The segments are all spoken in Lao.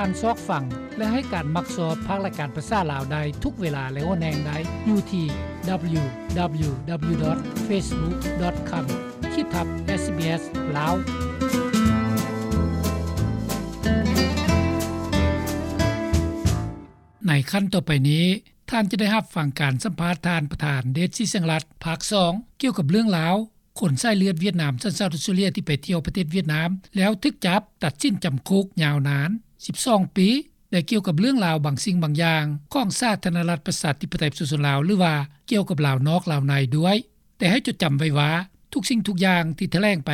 ທ່ານຊອກຟັງ ແລະ ໃຫ້ການມັກຊອບພາກລາຍການພາສາລາວໄດ້ທຸກເວລາ ແລະ ຫົວແຮງໄດ້ຢູ່ທີ່ www.facebook.com ຂີດທັບ SBS ລາວ. ໃນຂັ້ນຕໍ່ໄປນີ້, ທ່ານຈະໄດ້ຮັບຟັງການສຳພາດທ່ານປະທານ ເດດ ສີແສງລັດ ພາກສອງ ກ່ຽວກັບເລື່ອງລາວ ຄົນສາຍເລືອດຫວຽດນາມ ສັນຊາດອອສເຕຣເລຍ ທີ່ໄປທ່ຽວປະເທດຫວຽດນາມ ແລ້ວຖືກຈັບ ຕັດສິນຈຳຄຸກຍາວນານສິບສອງປີ ແລະ ກ່ຽວກັບເລື່ອງລາວບາງສິ່ງບາງຢ່າງ ຂອງສາທາລະນະລັດ ປະຊາທິປະໄຕ ປະຊາຊົນລາວ ຫຼືວ່າກ່ຽວກັບລາວນອກລາວໃນດ້ວຍ. ແຕ່ໃຫ້ຈົດຈຳໄວ້ວ່າ ທຸກສິ່ງທຸກຢ່າງທີ່ຖະແຫຼງໄປ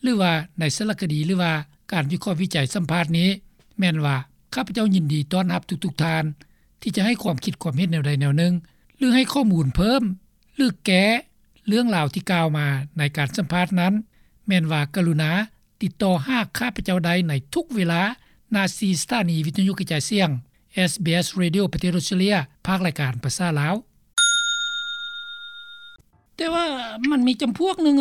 ຫຼືວ່າໃນສາລະຄະດີ ຫຼືວ່າການວິເຄາະວິໄຈສຳພາດນີ້ ແມ່ນວ່າ ຂ້າພະເຈົ້າຍິນດີຕ້ອນຮັບທຸກໆທ່ານ ທີ່ຈະໃຫ້ຄວາມຄິດຄວາມເຫັນແນວໃດແນວໜຶ່ງ ຫຼື ໃຫ້ຂໍ້ມູນເພີ່ມ ຫຼື ແກ້ເລື່ອງລາວທີ່ກ່າວມາໃນການສຳພາດນັ້ນ ແມ່ນວ່າກະລຸນາຕິດຕໍ່ຫາຂ້າພະເຈົ້າໄດ້ໃນທຸກເວລາ ນາທີ່ສະຖານີວິທະຍຸກະຈາຍສຽງ SBS Radio ປະເທດອອສເຕຣເລຍ ພາກລາຍການພາສາລາວ. ແຕ່ວ່າມັນມີຈຳພວກໜຶ່ງ,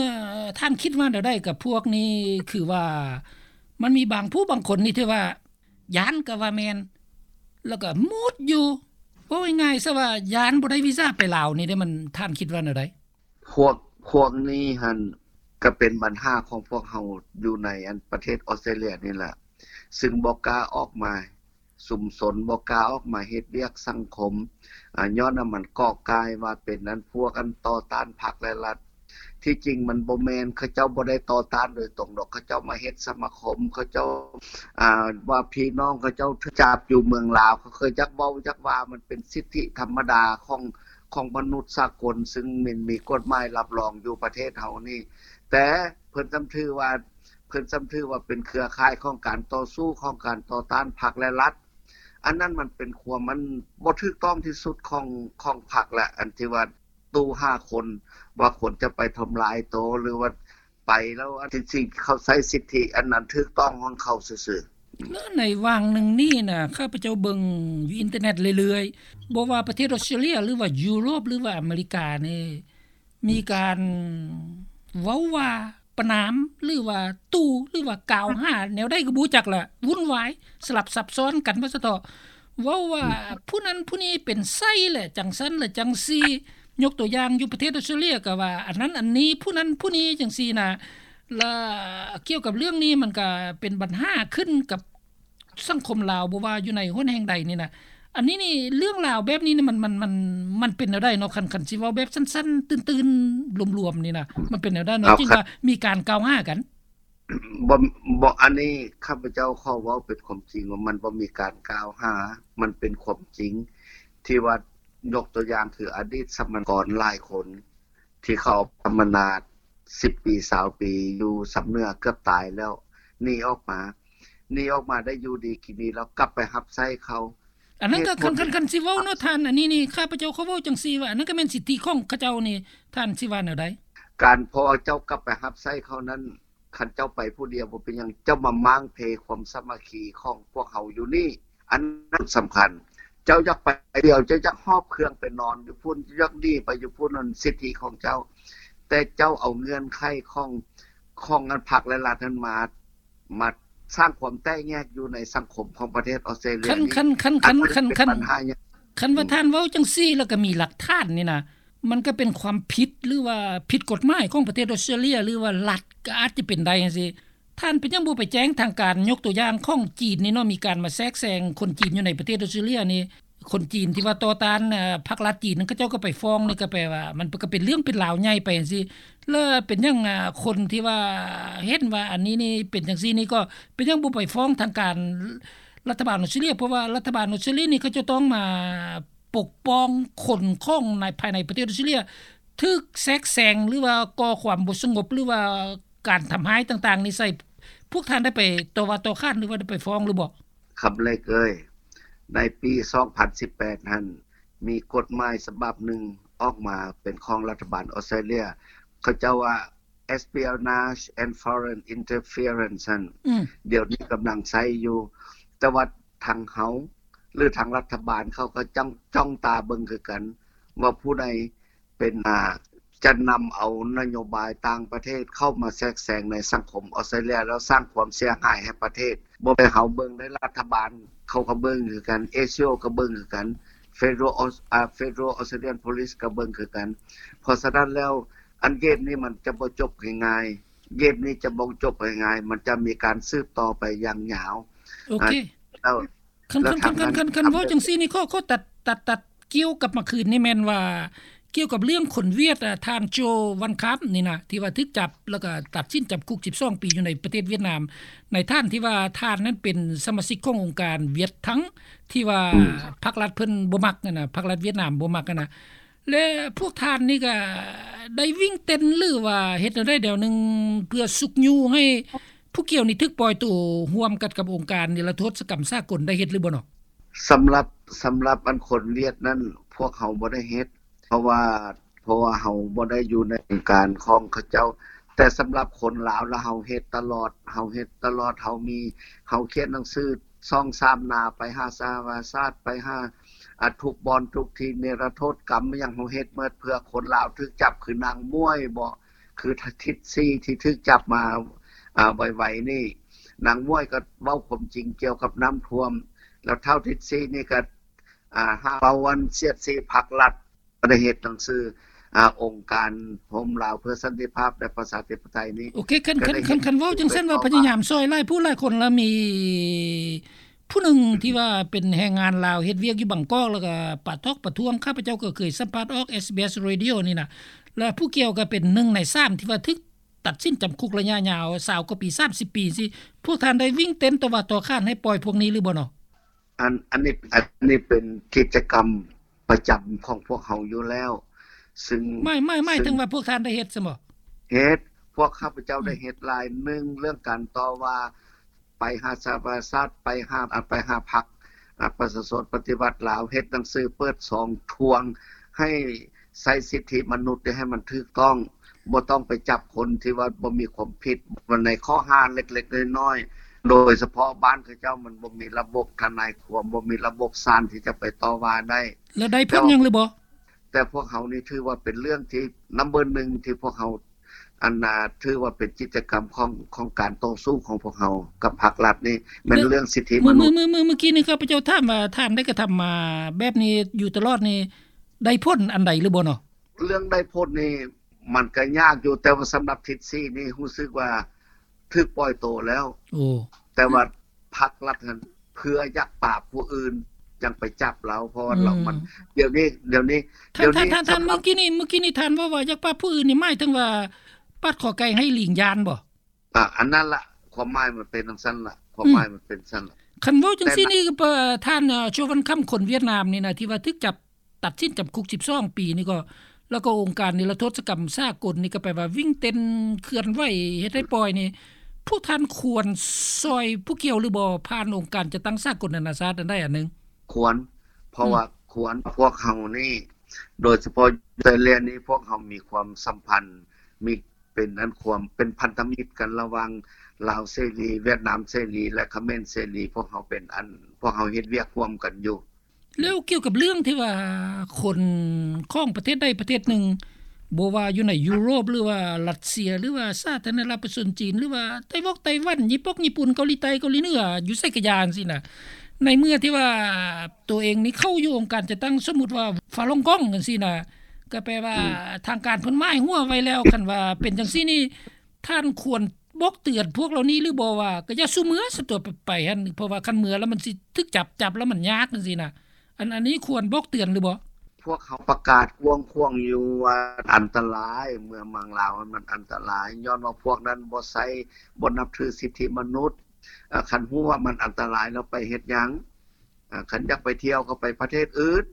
ທ່ານຄິດວ່າແນວໃດກັບພວກນີ້? ຄືວ່າມັນມີບາງຜູ້ບາງຄົນນີ້ທີ່ວ່າ ຢ້ານກໍວ່າແມ່ນ ແລ້ວກໍໝົດຢູ່. ເວົ້າງ່າຍໆຊະວ່າຢ້ານບໍ່ໄດ້ວີຊາໄປລາວນີ້ເດ້ ມັນ ທ່ານຄິດວ່າແນວໃດ? ພວກ ພວກນີ້ຫັ້ນ ກໍເປັນບັນຫາຂອງພວກເຮົາຢູ່ໃນອັນປະເທດອອສເຕຣເລຍນີ້ແຫຼະ ຊຶ່ງບໍ່ກ້າອອກມາຊຸມຊົນ ບໍ່ກ້າອອກມາເຮັດວຽກສັງຄົມ ອາ ຍ້ອນວ່າມັນເກາະກາຍວ່າເປັນອັນພວກອັນຕໍ່ຕ້ານພັກແລະລັດ. ທີ່ຈິງມັນບໍ່ແມ່ນ ເຂົາເຈົ້າບໍ່ໄດ້ຕໍ່ຕ້ານໂດຍຕົງດອກ ເຂົາເຈົ້າມາເຮັດສະມາຄົມ ເຂົາເຈົ້າ ອາ ວ່າພີ່ນ້ອງເຂົາເຈົ້າຖືກຈັບຢູ່ເມືອງລາວ ເຂົາເຄີຍຈັກເວົ້າຈັກວ່າ ມັນເປັນສິດທິທຳມະດາຂອງ ຂອງມະນຸດສາກົນ ຊຶ່ງມັນມີກົດໝາຍຮັບຮອງຢູ່ປະເທດເຮົານີ້ ແຕ່ເພິ່ນຈຳຖືວ່າ ເພິ່ນຈຳຖືວ່າເປັນເຄືອຂ່າຍຂອງການຕໍ່ສູ້ ຂອງການຕໍ່ຕ້ານພັກແລະລັດ. ອັນນັ້ນມັນເປັນຄວາມ ອັນບໍ່ຖືກຕ້ອງທີ່ສຸດຂອງ ຂອງພັກແຫຼະ ອັນທີ່ວ່າ ຕູ້ຫ້າຄົນ ວ່າຄົນຈະໄປທຳລາຍໂຕ ຫຼືວ່າໄປແລ້ວ ອັນທີ່ເຂົາໃຊ້ສິດທິອັນນັ້ນຖືກຕ້ອງຂອງເຂົາຊື່ໆ. ແລະ ໃນຫວ່າງໜຶ່ງນີ້ນະ ຂ້າພະເຈົ້າເບິ່ງຢູ່ອິນເຕີເນັດເລື້ອຍໆ ບໍ່ວ່າປະເທດອອສເຕຣເລຍ ຫຼືວ່າຢູໂຣບ ຫຼືວ່າອາເມລິການີ້ ມີການເວົ້າວ່າປະນາມ ຫຼືວ່າຕູ້ ຫຼືວ່າກ່າວຫາແນວໃດກໍບໍ່ຮູ້ຈັກລະ ວຸ່ນວາຍ ສະຫຼັບສັບຊ້ອນກັນວ່າຊັ້ນເຖາະ. ເວົ້າວ່າ ອືມ ຜູ້ນັ້ນຜູ້ນີ້ເປັນໄຊແຫຼະ ຈັ່ງຊັ້ນແຫຼະຈັ່ງຊີ້. ຍົກຕົວຢ່າງຢູ່ປະເທດອອສເຕຣເລຍກໍວ່າ ອັນນັ້ນອັນນີ້ ຜູ້ນັ້ນຜູ້ນີ້ ຈັ່ງຊີ້ນະ. ລະກ່ຽວກັບເລື່ອງນີ້ ມັນກໍເປັນບັນຫາຂຶ້ນກັບສັງຄົມລາວ ບໍ່ວ່າຢູ່ໃນຫົນແຫ່ງໃດນີ້ນະ. ອັນນີ້ນີ້ ເລື່ອງລາວແບບນີ້ນີ້ ມັນ ມັນ ມັນ ມັນເປັນແນວໃດເນາະ? ຄັນ ຄັນຊິເວົ້າແບບສັ້ນໆ ຕື່ນໆ ລວມໆ ນີ້ນະ ມັນເປັນແນວໃດເນາະ ຈຶ່ງວ່າມີການກ່າວຫາກັນ? ບໍ່ ບໍ່ ອັນນີ້ຂ້າພະເຈົ້າຂໍເວົ້າເປັນຄວາມຈິງວ່າມັນບໍ່ມີການກ່າວຫາ ມັນເປັນຄວາມຈິງ ທີ່ວ່າຍົກຕົວຢ່າງຄືອະດີດສຳມະນາກອນຫຼາຍຄົນ ທີ່ເຂົາເອົາສຳມະນາສິບປີ ຊາວປີ ຢູ່ຊຳເໜືອເກືອບຕາຍແລ້ວ ໜີອອກມາ ໜີອອກມາໄດ້ຢູ່ດີກິນດີ ແລ້ວກັບໄປຮັບໃຊ້ເຂົາ. ອັນນັ້ນກໍ ເຫດຜົນ ຄັນ ຄັນ ຄັນຊິເວົ້າເນາະທ່ານ ອັນນີ້ນີ້ ຂ້າພະເຈົ້າຂໍເວົ້າຈັ່ງຊີ້ວ່າ ອັນນັ້ນກໍແມ່ນສິດທິຂອງເຂົາເຈົ້ານີ້ ທ່ານຊິວ່າແນວໃດ? ການ ເພາະວ່າເຈົ້າກັບໄປຮັບໃຊ້ເຂົານັ້ນ ຄັນເຈົ້າໄປຜູ້ດຽວບໍ່ເປັນຫຍັງ ເຈົ້າມາມ້າງເພຄວາມສາມັກຄີຂອງພວກເຮົາຢູ່ນີ້ ອັນນັ້ນສຳຄັນ. ເຈົ້າຢາກໄປດຽວ ເຈົ້າຢາກຫອບເຄື່ອງໄປນອນຢູ່ພຸ້ນ ເຈົ້າຢາກໜີໄປຢູ່ພຸ້ນ ນັ້ນສິດທິຂອງເຈົ້າ ແຕ່ເຈົ້າເອົາເງື່ອນໄຂຂອງ ຂອງອັນພັກແລະລັດນັ້ນມາ ມາສ້າງຄວາມແຕກແຍກຢູ່ໃນສັງຄົມຂອງປະເທດອອສເຕຣເລຍນີ້ ຄັນ ຄັນ ຄັນ ຄັນ ຄັນ ຄັນ ຄັນວ່າທ່ານເວົ້າຈັ່ງຊີ້ ແລ້ວກໍມີຫຼັກຖານນີ້ນະ ມັນກໍເປັນຄວາມຜິດ ຫຼືວ່າຜິດກົດໝາຍຂອງປະເທດອອສເຕຣເລຍ ຫຼືວ່າລັດກໍອາດຈະເປັນໄດ້ຈັ່ງຊີ້. ທ່ານເປັນຫຍັງບໍ່ໄປແຈ້ງທາງການ? ຍົກຕົວຢ່າງຂອງຈີນນີ້ເນາະ ມີການມາແຊກແຊງຄົນຈີນຢູ່ໃນປະເທດອອສເຕຣເລຍນີ້ ຄົນຈີນທີ່ວ່າຕໍ່ຕ້ານ ເອີ ພັກລັດຈີນນັ້ນ ເຂົາເຈົ້າກໍໄປຟ້ອງນີ້ ກໍແປວ່າມັນກໍເປັນເລື່ອງເປັນລາວໃຫຍ່ໄປຈັ່ງຊີ້. ແລ້ວເປັນຫຍັງ ອາ ຄົນທີ່ວ່າເຫັນວ່າອັນນີ້ນີ້ເປັນຈັ່ງຊີ້ນີ້ ກໍເປັນຫຍັງບໍ່ໄປຟ້ອງທາງການລັດຖະບານອອສເຕຣເລຍ? ເພາະວ່າລັດຖະບານອອສເຕຣເລຍນີ້ ເຂົາເຈົ້າຕ້ອງມາປົກປ້ອງຄົນຂອງໃນ ພາຍໃນປະເທດອອສເຕຣເລຍ ຖືກແຊກແຊງ ຫຼືວ່າກໍ່ຄວາມບໍ່ສະຫງົບ ຫຼືວ່າການທຳຮ້າຍຕ່າງໆນີ້ໃສ່. ພວກທ່ານໄດ້ໄປຕໍ່ວ່າຕໍ່ຂານ ຫຼືວ່າໄດ້ໄປຟ້ອງຫຼືບໍ່? ຄຳເລັກເອີຍ, ໃນປີສອງພັນສິບແປດຫັ້ນ ມີກົດໝາຍສະບັບໜຶ່ງອອກມາເປັນຂອງລັດຖະບານອອສເຕຣເລຍ ເຂົາເຈົ້າວ່າ Espionage and Foreign Interference ຫັ້ນ ອືມ ດຽວນີ້ກຳລັງໃຊ້ຢູ່ ແຕ່ວ່າທາງເຮົາ ຫຼື ທາງລັດຖະບານເຂົາກໍຈ້ອງ ຈ້ອງຕາເບິ່ງຄືກັນ ວ່າຜູ້ໃດເປັນ ອາ ຈະນຳເອົານະໂຍບາຍຕ່າງປະເທດເຂົ້າມາແຊກແຊງໃນສັງຄົມອອສເຕຣເລຍ ແລ້ວສ້າງຄວາມເສຍຫາຍໃຫ້ປະເທດ ບໍ່ແມ່ນເຮົາເບິ່ງໄດ້ ລັດຖະບານເຂົາກໍເບິ່ງຄືກັນ, ເອສໂອກໍເບິ່ງຄືກັນ, Federal Aus- ອ່າ Federal Australian Police ກໍເບິ່ງຄືກັນ. ເພາະສະນັ້ນແລ້ວ ອັນເກມນີ້ມັນຈະບໍ່ຈົບງ່າຍໆ, ເກມນີ້ຈະບໍ່ຈົບງ່າຍໆ, ມັນຈະມີການສືບຕໍ່ໄປຢ່າງຍາວ. ໂອເຄ ແລ້ວ ຄັນ ແລ້ວ ຄັນ ຄັນ ຄັນ ຄັນ ຄັນເວົ້າຈັ່ງຊີ້ນີ້ ຂໍ ຂໍຕັດ ຕັດ ຕັດກ່ຽວກັບມາຄືນນີ້ ແມ່ນວ່າກ່ຽວກັບເລື່ອງຄົນຫວຽດ ອາ ທ່ານ ໂຈ ວັນຄຳ ນີ້ນະ ທີ່ວ່າຖືກຈັບ ແລ້ວກໍຕັດສິນຈຳຄຸກສິບສອງປີຢູ່ໃນປະເທດຫວຽດນາມ. ໃນທ່ານທີ່ວ່າທ່ານນັ້ນເປັນສະມາຊິກຂອງອົງການຫວຽດທັງ ທີ່ວ່າ ອືມ ພັກລັດເພິ່ນບໍ່ມັກຫັ້ນນະ, ພັກລັດຫວຽດນາມບໍ່ມັກຫັ້ນນະ. ແລະ ພວກທ່ານນີ້ກໍໄດ້ວິ່ງເຕັ້ນ ຫຼືວ່າເຮັດແນວໃດແນວໜຶ່ງ ເພື່ອຊຸກຍູ້ໃຫ້ຜູ້ກ່ຽວນີ້ຖືກປ່ອຍໂຕ ຮ່ວມກັນກັບອົງການນິລະໂທດສະກຳສາກົນ ໄດ້ເຮັດຫຼືບໍ່ເນາະ? ສຳລັບ ສຳລັບອັນຄົນຫວຽດນັ້ນ ພວກເຮົາບໍ່ໄດ້ເຮັດ ເພາະວ່າ ເພາະວ່າເຮົາບໍ່ໄດ້ຢູ່ໃນການຂອງເຂົາເຈົ້າ. ແຕ່ສຳລັບຄົນລາວລະ ເຮົາເຮັດຕະຫຼອດ, ເຮົາເຮັດຕະຫຼອດ, ເຮົາມີ ເຮົາຂຽນໜັງສືສອງສາມໜ້າໄປຫາສະຫະປະຊາຊາດ, ໄປຫາ ອາ ທຸກບ່ອນທຸກທີ່ ນິລະໂທດກຳຫຍັງ ເຮົາເຮັດໝົດເພື່ອຄົນລາວຖືກຈັບ ຄືນາງໝວຍບໍ ຄືທິດຊີທີ່ຖືກຈັບມາ ອາ ໄວໆນີ້. ນາງໝວຍກໍເວົ້າຄວາມຈິງກ່ຽວກັບນ້ຳຖ້ວມ ແລ້ວທ້າວທິດຊີນີ້ກໍ ອາ ຫາເວົ້າອັນສຽດສີພັກລັດ ກໍໄດ້ເຮັດໜັງສື ອາ ອົງການໂຮມລາວເພື່ອສັນຕິພາບ ແລະ ປະຊາທິປະໄຕນີ້. ໂອເຄ ຄັນ ຄັນ ຄັນ ຄັນເວົ້າຈັ່ງຊັ້ນວ່າພະຍາຍາມຊ່ອຍຫຼາຍຜູ້ຫຼາຍຄົນ ແລ້ວມີຜູ້ໜຶ່ງທີ່ວ່າເປັນແຮງງານລາວເຮັດວຽກຢູ່ບາງກອກ ແລ້ວກໍປາທອກປະທ້ວງ ຂ້າພະເຈົ້າກໍເຄີຍສຳພາດອອກ ເອສບີເອສ Radio ນີ້ນະ ແລ້ວຜູ້ກ່ຽວກໍເປັນໜຶ່ງໃນສາມທີ່ວ່າຖືກຕັດສິນຈຳຄຸກໄລຍະຍາວ ຊາວກວ່າປີ ສາມສິບປີຊີ້. ພວກທ່ານໄດ້ວິ່ງເຕັ້ນຕໍ່ວ່າຕໍ່ຂານໃຫ້ປ່ອຍພວກນີ້ຫຼືບໍ່ເນາະ? ອັນ ອັນນີ້ ອັນນີ້ເປັນກິດຈະກຳປະຈຳຂອງພວກເຮົາຢູ່ແລ້ວ ຊຶ່ງ ໝາຍ ໝາຍ ໝາຍເຖິງວ່າພວກທ່ານໄດ້ເຮັດຊັ້ນບໍ? ເຮັດ, ພວກຂ້າພະເຈົ້າໄດ້ເຮັດຫຼາຍ. ໜຶ່ງ ເລື່ອງການຕໍ່ວ່າ ໄປຫາສະຫະປະຊາຊາດ, ໄປຫາ ອາ ໄປຫາພັກ ອາ ປະຊາຊົນປະຕິວັດລາວ, ເຮັດໜັງສືເປີດຊ່ອງທວງໃຫ້ໃຊ້ສິດທິມະນຸດໃຫ້ມັນຖືກຕ້ອງ. ບໍ່ຕ້ອງໄປຈັບຄົນທີ່ວ່າບໍ່ມີຄວາມຜິດ ໃນຂໍ້ຫາເລັກໆນ້ອຍໆ ໂດຍສະເພາະບ້ານເຂົາເຈົ້າມັນບໍ່ມີລະບົບທະນາຍຄວາມ, ບໍ່ມີລະບົບສານທີ່ຈະໄປຕໍ່ວ່າໄດ້. ແລ້ວໄດ້ຜົນຫຍັງຫຼືບໍ່? ແຕ່ພວກເຮົານີ້ຖືວ່າເປັນເລື່ອງທີ່ number ໜຶ່ງ ທີ່ພວກເຮົາ ອັນນ່າ ຖືວ່າເປັນກິດຈະກຳຂອງ ຂອງການຕໍ່ສູ້ຂອງພວກເຮົາກັບພັກລັດນີ້ ແມ່ນເລື່ອງສິດທິມະນຸດ. ເມື່ອ ເມື່ອ ເມື່ອ ເມື່ອ ເມື່ອກີ້ນີ້ຂ້າພະເຈົ້າຖາມວ່າ ທ່ານໄດ້ກະທຳມາແບບນີ້ຢູ່ຕະຫຼອດນີ້ ໄດ້ຜົນອັນໃດຫຼືບໍ່ເນາະ? ເລື່ອງໄດ້ຜົນນີ້ ມັນກໍຍາກຢູ່, ແຕ່ວ່າສຳລັບທິດສີນີ້ຮູ້ສຶກວ່າຖືກປ່ອຍໂຕແລ້ວ. ໂອ້ ແຕ່ວ່າພັກລັດຫັ້ນເພື່ອຢາກປາບຜູ້ອື່ນຈັ່ງໄປຈັບລາວ, ເພາະວ່າລາວມັນ ອືມ ດຽວນີ້ ດຽວນີ້ ທ່ານ ດຽວນີ້ ທ່ານ ທ່ານ ສຳລັບ ເມື່ອກີ້ນີ້ ເມື່ອກີ້ນີ້ທ່ານເວົ້າວ່າຢາກປາບຜູ້ອື່ນນີ້ ໝາຍເຖິງວ່າປາດຂໍໄກ່ໃຫ້ລີງຢ້ານບໍ? ອາ ອັນນັ້ນລະ ຄວາມໝາຍມັນເປັນຈັ່ງຊັ້ນລະ ຄວາມ ອືມ ໝາຍມັນເປັນຊັ້ນລະ. ຄັນເວົ້າຈັ່ງຊີ້ນີ້ ແຕ່ ກໍ ເອີ ທ່ານ ເອີ ໂຊວັນຄຳ ຄົນຫວຽດນາມນີ້ນະ ທີ່ວ່າຖືກຈັບ ຕັດສິນຈຳຄຸກສິບສອງປີນີ້ກໍ ແລ້ວກໍອົງການນິລະໂທດສະກຳສາກົນນີ້ກໍແປວ່າວິ່ງເຕັ້ນເຄື່ອນໄຫວເຮັດໃຫ້ປ່ອຍນີ້ ພວກທ່ານຄວນຊ່ອຍຜູ້ກ່ຽວຫຼືບໍ່ ຜ່ານອົງການຈັດຕັ້ງສາກົນນານາຊາດອັນໃດອັນໜຶ່ງ? ຄວນ ເພາະວ່າ ອືມ ຄວນ ພວກເຮົານີ້ ໂດຍສະເພາະຢູ່ໄທແລນນີ້ ພວກເຮົາມີຄວາມສຳພັນ ມີ ເປັນອັນຄວາມເປັນພັນທະມິດກັນລະຫວ່າງລາວເສລີ, ຫວຽດນາມເສລີ ແລະ ຂະເໝນເສລີ, ພວກເຮົາເປັນອັນ ພວກເຮົາເຮັດວຽກຮ່ວມກັນຢູ່. ແລ້ວກ່ຽວກັບເລື່ອງທີ່ວ່າຄົນຂອງປະເທດໃດປະເທດໜຶ່ງ ບໍ່ວ່າຢູ່ໃນຢູໂຣບ ຫຼືວ່າຣັດເຊຍ ຫຼືວ່າສາທາລະນະລັດປະຊາຊົນຈີນ ຫຼືວ່າໄຕ້ຫວັນ ໄຕ້ຫວັນ ຍີ່ປຸ່ນ ຍີ່ປຸ່ນ ເກົາຫຼີໃຕ້ ເກົາຫຼີເໜືອ ຢູ່ໃສກະຢ່າຈັ່ງຊີ້ນະ ໃນເມື່ອທີ່ວ່າໂຕເອງນີ້ເຂົ້າຢູ່ອົງການຈັດຕັ້ງ ສົມມຸດວ່າຟາລົງກອງຈັ່ງຊີ້ນະ ກໍແປວ່າ ອືມ ທາງການເພິ່ນໝາຍຫົວໄວ້ແລ້ວ. ຄັນວ່າເປັນຈັ່ງຊີ້ນີ້ ທ່ານຄວນບອກເຕືອນພວກເຫຼົ່ານີ້ຫຼືບໍ່ວ່າ ກໍຢ່າສູ່ເມືອຊະຕົວະ ໄປ ໄປຫັ້ນ ເພາະວ່າຄັນເມືອແລ້ວມັນຊິຖືກຈັບ, ຈັບແລ້ວມັນຍາກຈັ່ງຊີ້ນະ. ອັນ ອັນນີ້ຄວນບອກເຕືອນຫຼືບໍ່? ພວກເຮົາປະກາດກວ້າງຂວາງຢູ່ວ່າອັນຕະລາຍ, ເມືອເມືອງລາວມັນອັນຕະລາຍ ຍ້ອນວ່າພວກນັ້ນບໍ່ໃຊ້, ບໍ່ນັບຖືສິດທິມະນຸດ. ເອີ ຄັນຮູ້ວ່າມັນອັນຕະລາຍແລ້ວໄປເຮັດຫຍັງ? ເອີ ຄັນຢາກໄປທ່ຽວກໍໄປປະເທດອື່ນ.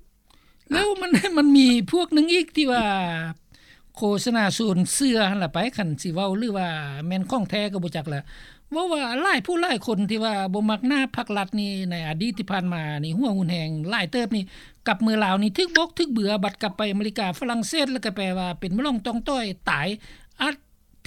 ແລ້ວມັນ ມັນມີພວກໜຶ່ງອີກທີ່ວ່າໂຄສະນາຊວນເຊື່ອຫັ້ນລະໄປ ຄັນຊິເວົ້າ ຫຼືວ່າແມ່ນຂອງແທ້ກໍບໍ່ຈັກລະ ເວົ້າວ່າຫຼາຍຜູ້ຫຼາຍຄົນທີ່ວ່າບໍ່ມັກໜ້າພັກລັດນີ້ ໃນອະດີດທີ່ຜ່ານມານີ້ ຫົວຮຸນແຮງຫຼາຍເຕີບນີ້ ກັບເມືອລາວນີ້ຖືກບອກຖືກເບືອ ບັດກັບໄປອາເມລິກາຝຣັ່ງເສດ ແລ້ວກໍແປວ່າເປັນໝໍຫຼວງຕ້ອງຕ່ອຍຕາຍ ອາດ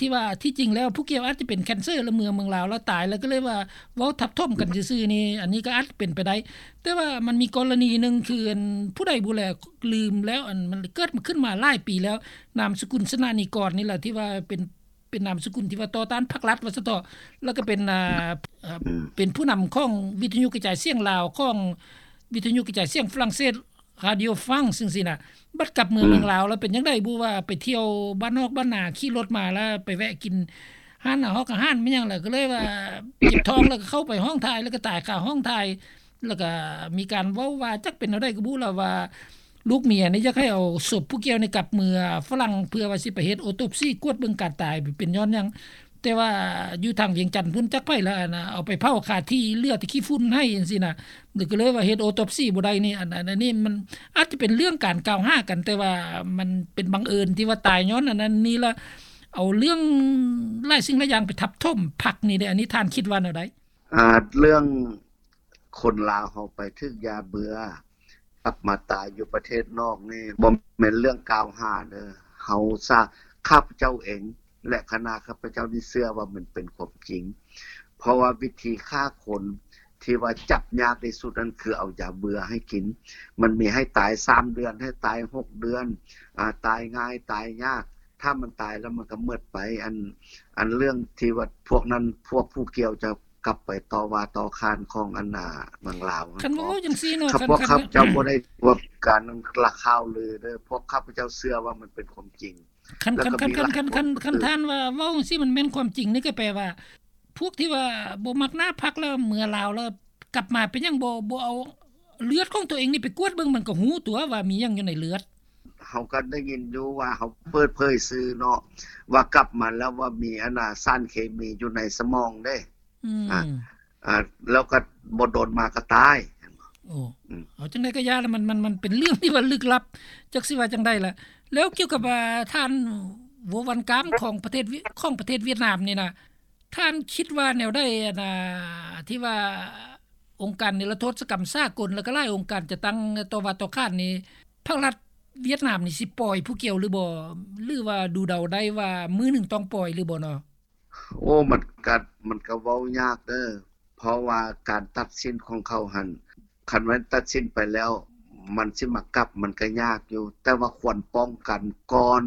ທີ່ວ່າທີ່ຈິງແລ້ວຜູ້ກ່ຽວອາດຈະເປັນແຄນເຊີ ແລ້ວເມືອເມືອງລາວແລ້ວຕາຍ ແລ້ວກໍເລີຍວ່າເວົ້າທັບຖົມກັນຊື່ໆນີ້ ອັນນີ້ກໍອາດເປັນໄປໄດ້. ແຕ່ວ່າມັນມີກໍລະນີໜຶ່ງ ຄືອັນຜູ້ໃດບໍ່ແລ ລືມແລ້ວ ອັນມັນເກີດມາຂຶ້ນມາຫຼາຍປີແລ້ວ ນາມສະກຸນ ຊະນະນີກອນ ນີ້ລະ ທີ່ວ່າເປັນ ປັນນາມສະກຸນທີ່ວ່າຕໍ່ຕ້ານພັກລັດວ່າຊັ້ນເຖາະ ແລ້ວກໍເປັນ ອ່າ ເປັນຜູ້ນຳຂອງວິທະຍຸກະຈາຍສຽງລາວ ຂອງວິທະຍຸກະຈາຍສຽງຝຣັ່ງເສດ Radio France ຈັ່ງຊີ້ນະ. ບັດກັບເມືອງລາວແລ້ວເປັນຈັ່ງໃດບໍ່ ວ່າໄປທ່ຽວບ້ານນອກບ້ານນາ ຂີ່ລົດມາແລ້ວໄປແວະກິນຮ້ານອາຫອກອາຫານແມ່ນຫຍັງ ແລ້ວກໍເລີຍວ່າເຈັບທ້ອງ ແລ້ວກໍເຂົ້າໄປຫ້ອງຖ່າຍ ແລ້ວກໍຕາຍຄາຫ້ອງຖ່າຍ ແລ້ວກໍມີການເວົ້າວ່າ ຈັກເປັນແນວໃດກໍບໍ່ ແລ້ວວ່າລູກເມຍນີ້ຢາກໃຫ້ເອົາສົບຜູ້ກ່ຽວນີ້ກັບເມືອຝຣັ່ງ ເພື່ອວ່າຊິໄປເຮັດໂອໂຕບຊີ ກວດເບິ່ງການຕາຍເປັນຍ້ອນຫຍັງ. ແຕ່ວ່າຢູ່ທາງວຽງຈັນພຸ້ນ ຈັກໃຜລະ ອັນນ່າ ເອົາໄປເຜົາຄາທີ່ ເຫຼືອແຕ່ຂີ້ຝຸ່ນໃຫ້ຈັ່ງຊີ້ນະ ກໍເລີຍວ່າເຮັດໂອໂຕບຊີບໍ່ໄດ້ນີ້. ອັນ ອັນ ອັນນີ້ມັນອາດຈະເປັນເລື່ອງການກ່າວຫາກັນ ແຕ່ວ່າມັນເປັນບັງເອີນທີ່ວ່າຕາຍຍ້ອນອັນນັ້ນນີ້ລະ ເອົາເລື່ອງຫຼາຍສິ່ງຫຼາຍຢ່າງໄປທັບຖົມພັກນີ້ເດ້. ອັນນີ້ທ່ານຄິດວ່າແນວໃດ? ອາ ເລື່ອງຄົນລາວເຮົາໄປຖືກຢາເບື່ອ ກັບມາຕາຍຢູ່ປະເທດນອກນີ້ ບໍ່ແມ່ນເລື່ອງກ່າວຫາເດີ. ເຮົາສາ ຂ້າພະເຈົ້າເອງ ແລະ ຄະນະຂ້າພະເຈົ້ານີ້ເຊື່ອວ່າມັນເປັນຄວາມຈິງ ເພາະວ່າວິທີຂ້າຄົນທີ່ວ່າຈັບຍາກທີ່ສຸດນັ້ນ ຄືເອົາຢາເບື່ອໃຫ້ກິນ. ມັນມີໃຫ້ຕາຍສາມເດືອນ ໃຫ້ຕາຍຫົກເດືອນ ອາ ຕາຍງ່າຍ ຕາຍຍາກ. ຖ້າມັນຕາຍແລ້ວມັນກໍໝົດໄປ. ອັນ ອັນເລື່ອງທີ່ວ່າພວກນັ້ນ ພວກຜູ້ກ່ຽວຈະ ກັບໄປຕໍ່ວ່າຕໍ່ຂານຂອງອັນນາເມືອງລາວ. ຄັນວ່າເວົ້າຈັ່ງຊີ້ເນາະ ຄັນ ພວກຂ້າພະເຈົ້າບໍ່ໄດ້ວ່າການລະຂ່າວລືເດີ ພວກຂ້າພະເຈົ້າເຊື່ອວ່າມັນເປັນຄວາມຈິງ. ຄັນ ຄັນ ຄັນ ຄັນ ຄັນ ຄັນ ຄັນທ່ານວ່າເວົ້າຈັ່ງຊີ້ມັນແມ່ນຄວາມຈິງນີ້ ກໍແປວ່າພວກທີ່ວ່າບໍ່ມັກໜ້າພັກແລ້ວເມືອລາວ ແລ້ວກັບມາເປັນຫຍັງບໍ່ ບໍ່ເອົາເລືອດຂອງຕົວເອງນີ້ໄປກວດເບິ່ງ ມັນກໍຮູ້ຕົວວ່າມີຫຍັງຢູ່ໃນເລືອດ. ເຮົາກໍໄດ້ຍິນຢູ່ວ່າເຂົາເປີດເຜີຍສື່ເນາະ ວ່າກັບມາແລ້ວວ່າມີອັນນາສານເຄມີຢູ່ໃນສະໝອງເດ້. ອືມ ອາ ອາ ແລ້ວກໍບໍ່ດົນມາກໍຕາຍ. ໂອ້ ອືມ ເອົາຈັ່ງໃດກໍຢ່າລະ ມັນ ມັນ ມັນເປັນເລື່ອງທີ່ວ່າລຶກລັບ ຈັກຊິວ່າຈັ່ງໃດລະ. ແລ້ວກ່ຽວກັບ ອາ ທ່ານ ໂວ ວັນກາມ ຂອງປະເທດ ຂອງປະເທດຫວຽດນາມນີ້ນະ ທ່ານຄິດວ່າແນວໃດ ອັນນາ ທີ່ວ່າອົງການນິລະໂທດສະກຳສາກົນ ແລ້ວກໍຫຼາຍອົງການຈະຕັ້ງຕໍ່ວ່າຕໍ່ຂານນີ້ ພັກລັດຫວຽດນາມນີ້ຊິປ່ອຍຜູ້ກ່ຽວຫຼືບໍ່ ຫຼືວ່າດູເດົາໄດ້ວ່າມື້ໜຶ່ງຕ້ອງປ່ອຍຫຼືບໍ່ເນາະ? ໂອ້ ມັນກະ ມັນກະເວົ້າຍາກເດີ ເພາະວ່າການຕັດສິນຂອງເຂົາຫັ້ນ ຄັນແມ່ນຕັດສິນໄປແລ້ວ ມັນຊິມາກັບ ມັນກະຍາກຢູ່ ແຕ່ວ່າຄວນປ້ອງກັນກ່ອນ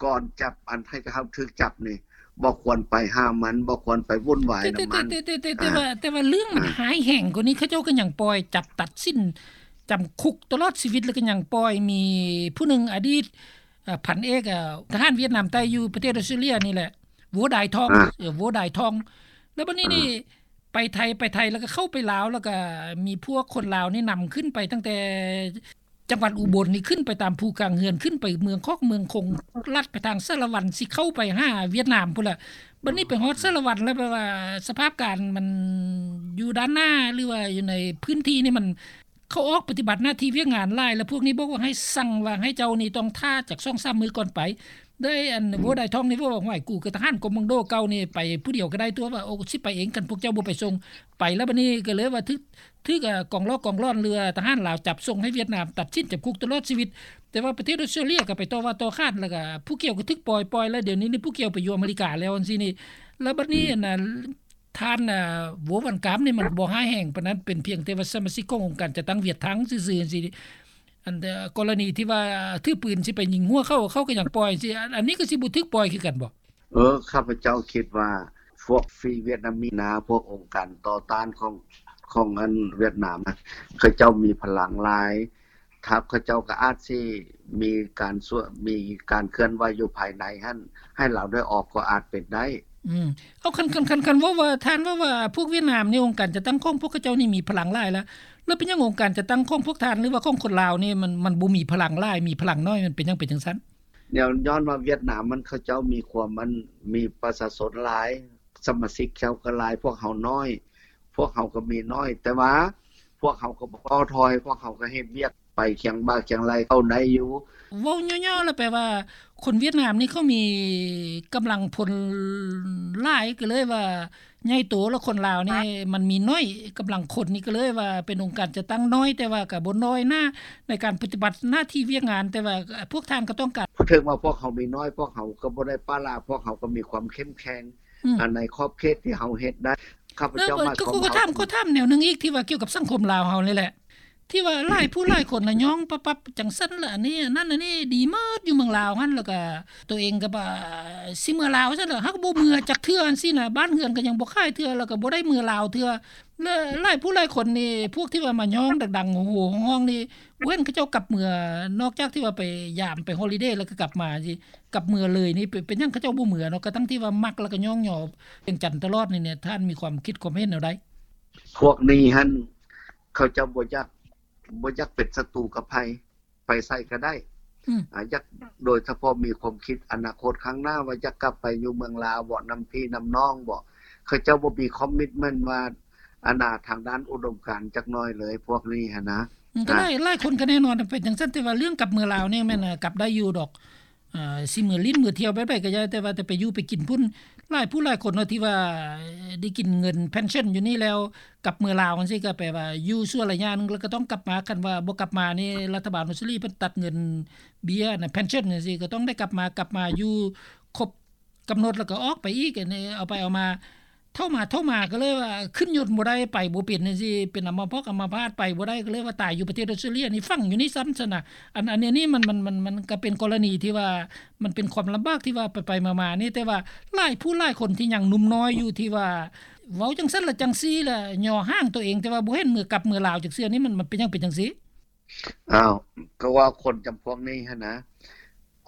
ກ່ອນຈັບ ອັນໃຫ້ເຮົາຖືກຈັບນີ້ ບໍ່ຄວນໄປຫາມັນ ບໍ່ຄວນໄປວຸ່ນວາຍນຳມັນ. ແຕ່ ແຕ່ ແຕ່ ແຕ່ ແຕ່ວ່າ ແຕ່ວ່າເລື່ອງມັນຮ້າຍແຮງກວ່ານີ້ ເຂົາເຈົ້າກໍຍັງປ່ອຍ ຈັບຕັດສິນຈຳຄຸກຕະຫຼອດຊີວິດ ແລ້ວກໍຍັງປ່ອຍ ມີຜູ້ໜຶ່ງ ອະດີດ ເອີ ພັນເອກ ເອີ ທະຫານຫວຽດນາມໃຕ້ຢູ່ປະເທດອອສເຕຣເລຍນີ້ແຫຼະ ໂວດາຍທອງ ເອີ ໂວດາຍທອງ. ແລ້ວບັດນີ້ນີ້ ໄປໄທ ໄປໄທ ແລ້ວກໍເຂົ້າໄປລາວ ແລ້ວກໍມີພວກຄົນລາວນີ້ນຳຂຶ້ນໄປຕັ້ງແຕ່ ຈັງຫວັດອຸບົນນີ້ ຂຶ້ນໄປຕາມພູກາງເຮືອນ ຂຶ້ນໄປເມືອງຄອກເມືອງຄົງ ລັດໄປທາງສາລະວັນ ຊິເຂົ້າໄປຫາຫວຽດນາມພຸ້ນລະ. ບັດນີ້ໄປຮອດສາລະວັນແລ້ວ ແບບວ່າສະພາບການມັນຢູ່ດ້ານໜ້າ ຫຼືວ່າຢູ່ໃນພື້ນທີ່ນີ້ ມັນ ເຂົາອອກປະຕິບັດໜ້າທີ່ວຽກງານຫຼາຍ ແລ້ວພວກນີ້ບອກວ່າໃຫ້ສັ່ງວ່າໃຫ້ເຈົ້ານີ້ຕ້ອງຖ້າຈັກສອງສາມມື້ກ່ອນໄປ. ໄດ້ອັນ ອືມ ໂວດາຍທອງນີ້ເວົ້າວ່າ ຫ້ວຍ ກູກໍທະຫານກອມມານໂດເກົ່ານີ້ ໄປຜູ້ດຽວກໍໄດ້ຕົວະ ວ່າ ໂອ້ ຊິໄປເອງ ຄັນພວກເຈົ້າບໍ່ໄປສົ່ງ ໄປແລ້ວບັດນີ້ກໍເລີຍວ່າຖືກ ຖືກ ເອີ ກອງຫຼອກກອງຫຼອນ ຫຼືວ່າທະຫານລາວຈັບສົ່ງໃຫ້ຫວຽດນາມ ຕັດສິນຈຳຄຸກຕະຫຼອດຊີວິດ. ແຕ່ວ່າປະເທດອອສເຕຣເລຍກໍໄປຕໍ່ວ່າຕໍ່ຂານ ແລ້ວກໍຜູ້ກ່ຽວກໍຖືກປ່ອຍ ປ່ອຍແລ້ວ ດຽວນີ້ນີ້ຜູ້ກ່ຽວໄປຢູ່ອາເມລິກາແລ້ວ ຈັ່ງຊີ້ນີ້. ແລ້ວບັດນີ້ ອືມ ອັນນ່າ ທ່ານ ເອີ ໂວວັນກາມນີ້ມັນບໍ່ຮ້າຍແຮງປານນັ້ນ ເປັນພຽງແຕ່ວ່າສະມາຊິກຂອງອົງການຈັດຕັ້ງຫວຽດທັງຊື່ໆ ຈັ່ງຊີ້. ອັນ ເອີ ກໍລະນີທີ່ວ່າຖືປືນຊິໄປຍິງຫົວເຂົາ ເຂົາກໍຍັງປ່ອຍ ຈັ່ງຊີ້ ອັນ ອັນນີ້ກໍຊິບໍ່ຖືກປ່ອຍຄືກັນບໍ່? ເອີ ຂ້າພະເຈົ້າຄິດວ່າພວກຟຣີຫວຽດນາມີນາ ພວກອົງການຕໍ່ຕ້ານຂອງ ຂອງອັນຫວຽດນາມນະ ເຂົາເຈົ້າມີພະລັງຫຼາຍ ຖ້າເຂົາເຈົ້າກໍອາດຊິມີການຊ່ວຍ ມີການເຄື່ອນໄຫວຢູ່ພາຍໃນຫັ້ນ ໃຫ້ລາວໄດ້ອອກກໍອາດເປັນໄດ້. ອືມ ເອົາ ຄັນ ຄັນ ຄັນ ຄັນເວົ້າວ່າ ທ່ານເວົ້າວ່າພວກຫວຽດນາມນີ້ ອົງການຈັດຕັ້ງຂອງພວກເຂົາເຈົ້ານີ້ມີພະລັງຫຼາຍລະ ແລ້ວເປັນຫຍັງອົງການຈັດຕັ້ງຂອງພວກທ່ານ ຫຼືວ່າຂອງຄົນລາວນີ້ ມັນ ມັນບໍ່ມີພະລັງຫຼາຍ ມີພະລັງໜ້ອຍ ມັນເປັນຫຍັງເປັນຈັ່ງຊັ້ນ? ແນວ ຍ້ອນວ່າຫວຽດນາມມັນ ເຂົາເຈົ້າມີຄວາມ ມັນມີປະຊາຊົນຫຼາຍ ສະມາຊິກເຂົາກໍຫຼາຍ ພວກເຮົາໜ້ອຍ ພວກເຮົາກໍມີໜ້ອຍ ແຕ່ວ່າພວກເຮົາກໍບໍ່ທໍ້ຖອຍ ພວກເຮົາກໍເຮັດວຽກໄປຄຽງບ່າຄຽງໄຫຼ່ເຂົ້າໄດ້ຢູ່. ເວົ້າຫຍໍ້ໆ ແລ້ວແປວ່າຄົນຫວຽດນາມນີ້ເຂົາມີກຳລັງພົນຫຼາຍ ກໍເລີຍວ່າໃຫຍ່ໂຕ ແລ້ວຄົນລາວນີ້ມັນມີໜ້ອຍ ກຳລັງຄົນນີ້ກໍເລີຍວ່າເປັນອົງການຈັດຕັ້ງໜ້ອຍ ແຕ່ວ່າກໍບໍ່ນ້ອຍໜ້າໃນການປະຕິບັດໜ້າທີ່ວຽກງານ ແຕ່ວ່າພວກທ່ານກໍຕ້ອງການ ເຖິງວ່າພວກເຮົາມີໜ້ອຍ ພວກເຮົາກໍບໍ່ໄດ້ປະລະ ພວກເຮົາກໍມີຄວາມເຂັ້ມແຂງ ອືມ ໃນຂອບເຂດທີ່ເຮົາເຮັດໄດ້. ຂ້າພະເຈົ້າ ເອີ ມາ ເອີ ກໍ ກໍຖາມ ກໍຖາມແນວໜຶ່ງອີກ ທີ່ວ່າກ່ຽວກັບສັງຄົມລາວເຮົານີ້ແຫຼະ ທີ່ວ່າຫຼາຍຜູ້ຫຼາຍຄົນນະຍ້ອງປັບໆ ຈັ່ງຊັ້ນລະ ອັນນີ້ ອັນນັ້ນ ອັນນີ້ ດີໝົດຢູ່ເມືອງລາວຫັ້ນ ແລ້ວກະໂຕເອງກໍວ່າຊິເມືອລາວຊັ້ນລະ ຫາກບໍ່ເມືອຈັກເທື່ອຈັ່ງຊີ້ນະ ບ້ານເຮືອນກໍຍັງບໍ່ຂາຍເທື່ອ ແລ້ວກໍບໍ່ໄດ້ເມືອລາວເທື່ອ ແລະ ຫຼາຍຜູ້ຫຼາຍຄົນນີ້ ພວກທີ່ວ່າມາຍ້ອງດັງໆ ໂຫຮ້ໆຮ້ອງໆນີ້ ບໍ່ເຫັນເຂົາເຈົ້າກັບເມືອ ນອກຈາກທີ່ວ່າໄປຢາມໄປຮອລິເດແລ້ວກໍກັບມາຊີ້ ກັບເມືອເລີຍນີ້ ເປັນ ເປັນຫຍັງເຂົາເຈົ້າບໍ່ເມືອເນາະ ກະທັ່ງທີ່ວ່າມັກແລ້ວກໍຍ້ອງຍໍວຽງຈັນຕະຫຼອດນີ້ ທ່ານມີຄວາມຄິດຄວາມເຫັນແນວໃດ? ພວກນີ້ຫັ້ນ ເຂົາເຈົ້າບໍ່ຢາກ ບໍ່ຢາກເປັນສັດຕູກັບໃຜ ໄປໃສກໍໄດ້ ອືມ ອາ ຢາກ ໂດຍສະເພາະມີຄວາມຄິດອະນາຄົດຂ້າງໜ້າວ່າຢາກກັບໄປຢູ່ເມືອງລາວບໍ ນຳພີ່ນຳນ້ອງບໍ ເຂົາເຈົ້າບໍ່ມີຄອມມິດເມັນວ່າ ອັນນ່າ ທາງດ້ານອຸດົມການຈັກໜ້ອຍເລີຍ ພວກນີ້ຫັ້ນນະ ອືມ ກໍຫຼາຍ ອາ ຫຼາຍຄົນກໍແນ່ນອນເປັນຈັ່ງຊັ້ນ ແຕ່ວ່າເລື່ອງກັບເມືອລາວນີ້ແມ່ນ ອາ ກັບໄດ້ຢູ່ດອກ ອ່າ ຊິເມືອຫຼິ້ນເມືອທ່ຽວແບບໃດກໍຢ່າ ແຕ່ວ່າແຕ່ໄປຢູ່ໄປກິນພຸ້ນ ຫຼາຍຜູ້ຫຼາຍຄົນເນາະ ທີ່ວ່າໄດ້ກິນເງິນ pension ຢູ່ນີ້ແລ້ວ ກັບເມືອລາວຈັ່ງຊີ້ ກໍແປວ່າຢູ່ຊົ່ວໄລຍະໜຶ່ງ ແລ້ວກໍຕ້ອງກັບມາ ຄັນວ່າບໍ່ກັບມານີ້ ລັດຖະບານອົດສະຕຣາລີເພິ່ນຕັດເງິນເບ້ຍນະ pension ຈັ່ງຊີ້ ກໍຕ້ອງໄດ້ກັບມາ ກັບມາຢູ່ຄົບກຳນົດ ແລ້ວກໍອອກໄປອີກ ອັນນີ້ເອົາໄປເອົາມາ ເຖົ້າມາ ເຖົ້າມາກໍເລີຍວ່າຂຶ້ນຍົນບໍ່ໄດ້ ໄປບໍ່ເປັນຈັ່ງຊີ້ ເປັນອຳມະພອກອຳມະພາດ ໄປບໍ່ໄດ້ ກໍເລີຍວ່າຕາຍຢູ່ປະເທດອົດສະຕຣາລີ ອັນນີ້ຝັງຢູ່ນີ້ຊ້ຳຊັ້ນນະ ອັນ ອັນນີ້ມັນ ມັນ ມັນ ມັນກໍເປັນກໍລະນີທີ່ວ່າ ມັນເປັນຄວາມລຳບາກທີ່ວ່າໄປໆມາໆນີ້ ແຕ່ວ່າຫຼາຍຜູ້ຫຼາຍຄົນທີ່ຍັງໜຸ່ມນ້ອຍຢູ່ ທີ່ວ່າເວົ້າຈັ່ງຊັ້ນລະຈັ່ງຊີ້ລະ ຍໍຮ່າງໂຕເອງ ແຕ່ວ່າບໍ່ເຫັນເມືອກັບເມືອລາວຈັກເທື່ອນີ້ ມັນ ມັນເປັນຫຍັງເປັນຈັ່ງຊີ້? ອ້າວ ກໍວ່າຄົນຈຳພວກນີ້ຫັ້ນນະ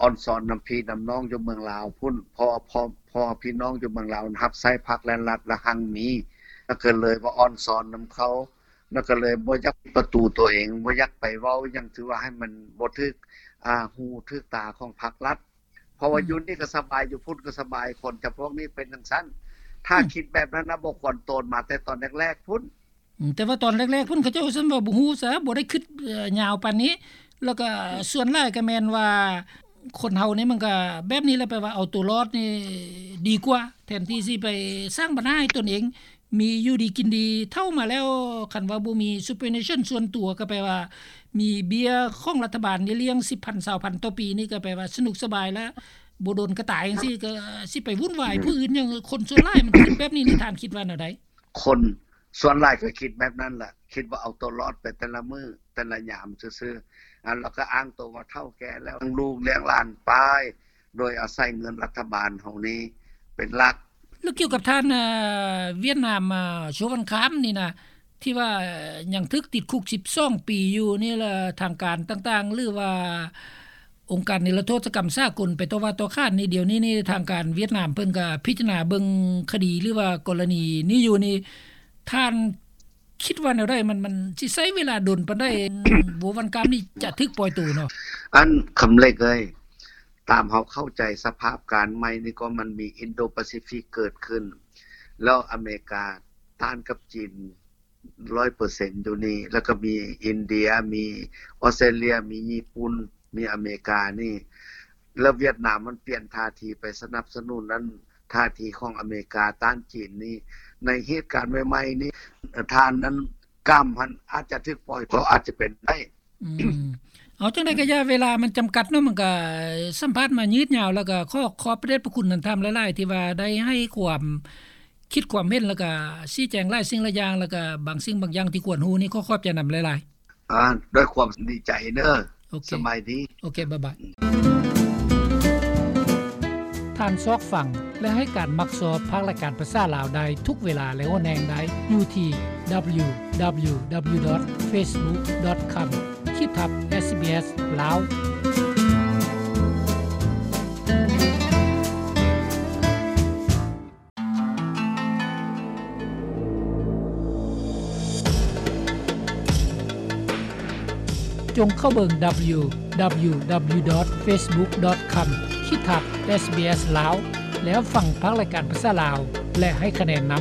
ອ່ອນຊອນນຳພີ່ນຳນ້ອງຢູ່ເມືອງລາວພຸ້ນ ເພາະ ເພາະ ເພາະວ່າພີ່ນ້ອງຢູ່ເມືອງລາວຮັບໃຊ້ພັກ ແລະ ລັດລະຮັ່ງມີ ແລ້ວກໍເລີຍວ່າອ່ອນຊອນນຳເຂົາ ແລ້ວກໍເລີຍບໍ່ຢາກປິດປະຕູຕົວເອງ ບໍ່ຢາກໄປເວົ້າຫຍັງ ຖືວ່າໃຫ້ມັນບໍ່ຖືກ ອ່າ ຫູຖືກຕາຂອງພັກລັດ ເພາະວ່າ ອືມ ຢູ່ນີ້ກໍສະບາຍ ຢູ່ພຸ້ນກໍສະບາຍ ຄົນຈຳພວກນີ້ເປັນຈັ່ງຊັ້ນ ຖ້າ ອືມ ຄິດແບບນັ້ນນະ ບໍ່ຄວນໂຕນມາແຕ່ຕອນແລກໆພຸ້ນ. ອືມ ແຕ່ວ່າຕອນແລກໆພຸ້ນ ເຂົາເຈົ້າຊ້ຳວ່າບໍ່ຮູ້ຊະ ບໍ່ໄດ້ຄິດ ເອີ ຍາວປານນີ້ ແລ້ວກໍສ່ວນຫຼາຍກໍແມ່ນວ່າ ຄົນເຮົານີ້ມັນກໍແບບນີ້ແຫຼະ ແປວ່າເອົາຕົວລອດນີ້ດີກວ່າ ແທນທີ່ຊິໄປສ້າງບັນຫາໃຫ້ຕົນເອງ ມີຢູ່ດີກິນດີ ເຖົ້າມາແລ້ວ ຄັນວ່າບໍ່ມີ superannuation ສ່ວນຕົວ ກໍແປວ່າມີເບ້ຍຂອງລັດຖະບານນີ້ລ້ຽງ ສິບພັນ ຊາວພັນຕໍ່ປີນີ້ ກໍແປວ່າສະໜຸກສະບາຍ ແລ້ວບໍ່ດົນກໍຕາຍຈັ່ງຊີ້ ກໍຊິໄປວຸ່ນວາຍຜູ້ອື່ນຫຍັງ ຄົນສ່ວນຫຼາຍມັນຄິດແບບນີ້ນີ້ ທ່ານຄິດວ່າແນວໃດ? ຄົນສ່ວນຫຼາຍກໍຄິດແບບນັ້ນລະ ຄິດວ່າເອົາຕົວລອດໄປແຕ່ລະມື້ແຕ່ລະຍາມຊື່ໆ ອັນ ແລ້ວກໍອ້າງໂຕວ່າເຖົ້າແກ່ແລ້ວ ລ້ຽງລູກລ້ຽງຫຼານໄປ ໂດຍອາໄສເງິນລັດຖະບານເຮົານີ້ເປັນຫຼັກ. ແລ້ວກ່ຽວກັບທ່ານ ເອີ ຫວຽດນາມ ເອີ ໂຊວັນຄາມນີ້ນະ ທີ່ວ່າຍັງຖືກຕິດຄຸກສິບສອງປີຢູ່ນີ້ລະ ທາງການຕ່າງໆ ຫຼືວ່າອົງການນິລະໂທດກຳສາກົນໄປຕໍ່ວ່າຕໍ່ຂານນີ້ ດຽວນີ້ນີ້ທາງການຫວຽດນາມເພິ່ນກໍພິຈາລະນາເບິ່ງຄະດີ ຫຼືວ່າກໍລະນີນີ້ຢູ່ນີ້ ທ່ານຄິດວ່າແນວໃດ? ມັນ ມັນຊິໃຊ້ເວລາດົນປານໃດ ໂຊວັນຄາມນີ້ຈະຖືກປ່ອຍໂຕເນາະ? ອັນ ຄຳເລັກເອີຍ ຕາມເຮົາເຂົ້າໃຈສະພາບການໃໝ່ນີ້ກໍມັນມີອິນໂດປາຊີຟິກເກີດຂຶ້ນ ແລ້ວອາເມລິກາຕ້ານກັບຈີນ ຮ້ອຍເປີເຊັນຢູ່ນີ້ ແລ້ວກໍມີອິນເດຍ ມີອອສເຕຣເລຍ ມີຍີ່ປຸ່ນ ມີອາເມລິການີ້ ແລ້ວຫວຽດນາມມັນປ່ຽນທ່າທີໄປສະໜັບສະໜູນນັ້ນ ທ່າທີຂອງອາເມລິກາຕ້ານຈີນນີ້ ໃນເຫດການໃໝ່ໆນີ້ ທ່ານນັ້ນກຳຫັ້ນອາດຈະຖືກປ່ອຍ ກໍອາດຈະເປັນໄດ້. ອືມ ເອົາ ຈັ່ງໃດກໍຢ່າ ເວລາມັນຈຳກັດເນາະ ມັນກໍສຳພາດມາຍືດຍາວ ແລ້ວກໍຂໍຂອບພະເດດພະຄຸນທ່ານຫຼາຍໆ ທີ່ວ່າໄດ້ໃຫ້ຄວາມຄິດຄວາມເຫັນ ແລ້ວກໍຊີ້ແຈງຫຼາຍສິ່ງຫຼາຍຢ່າງ ແລ້ວກໍບາງສິ່ງບາງຢ່າງທີ່ຄວນຮູ້ນີ້ ຂໍຂອບໃຈນຳຫຼາຍໆ. ອາ ດ້ວຍຄວາມດີໃຈເດີ. ໂອເຄ ສະບາຍດີ. ໂອເຄ ບາຍບາຍ. ທ່ານຊອກຟັງ ແລະ ໃຫ້ການມັກຊອບພາກລາຍການພາສາລາວໄດ້ທຸກເວລາ ແລະ ໂອແນງໄດ້ຢູ່ທີ່ www.facebook.com ຂີດທັບ SBS ລາວ. ຈົ່ງເຂົ້າເບິ່ງ www.facebook.com ຂີດທັບ SBS ລາວ ແລ້ວຟັງພາກລາຍການພາສາລາວ ແລະ ໃຫ້ຄະແນນນຳ.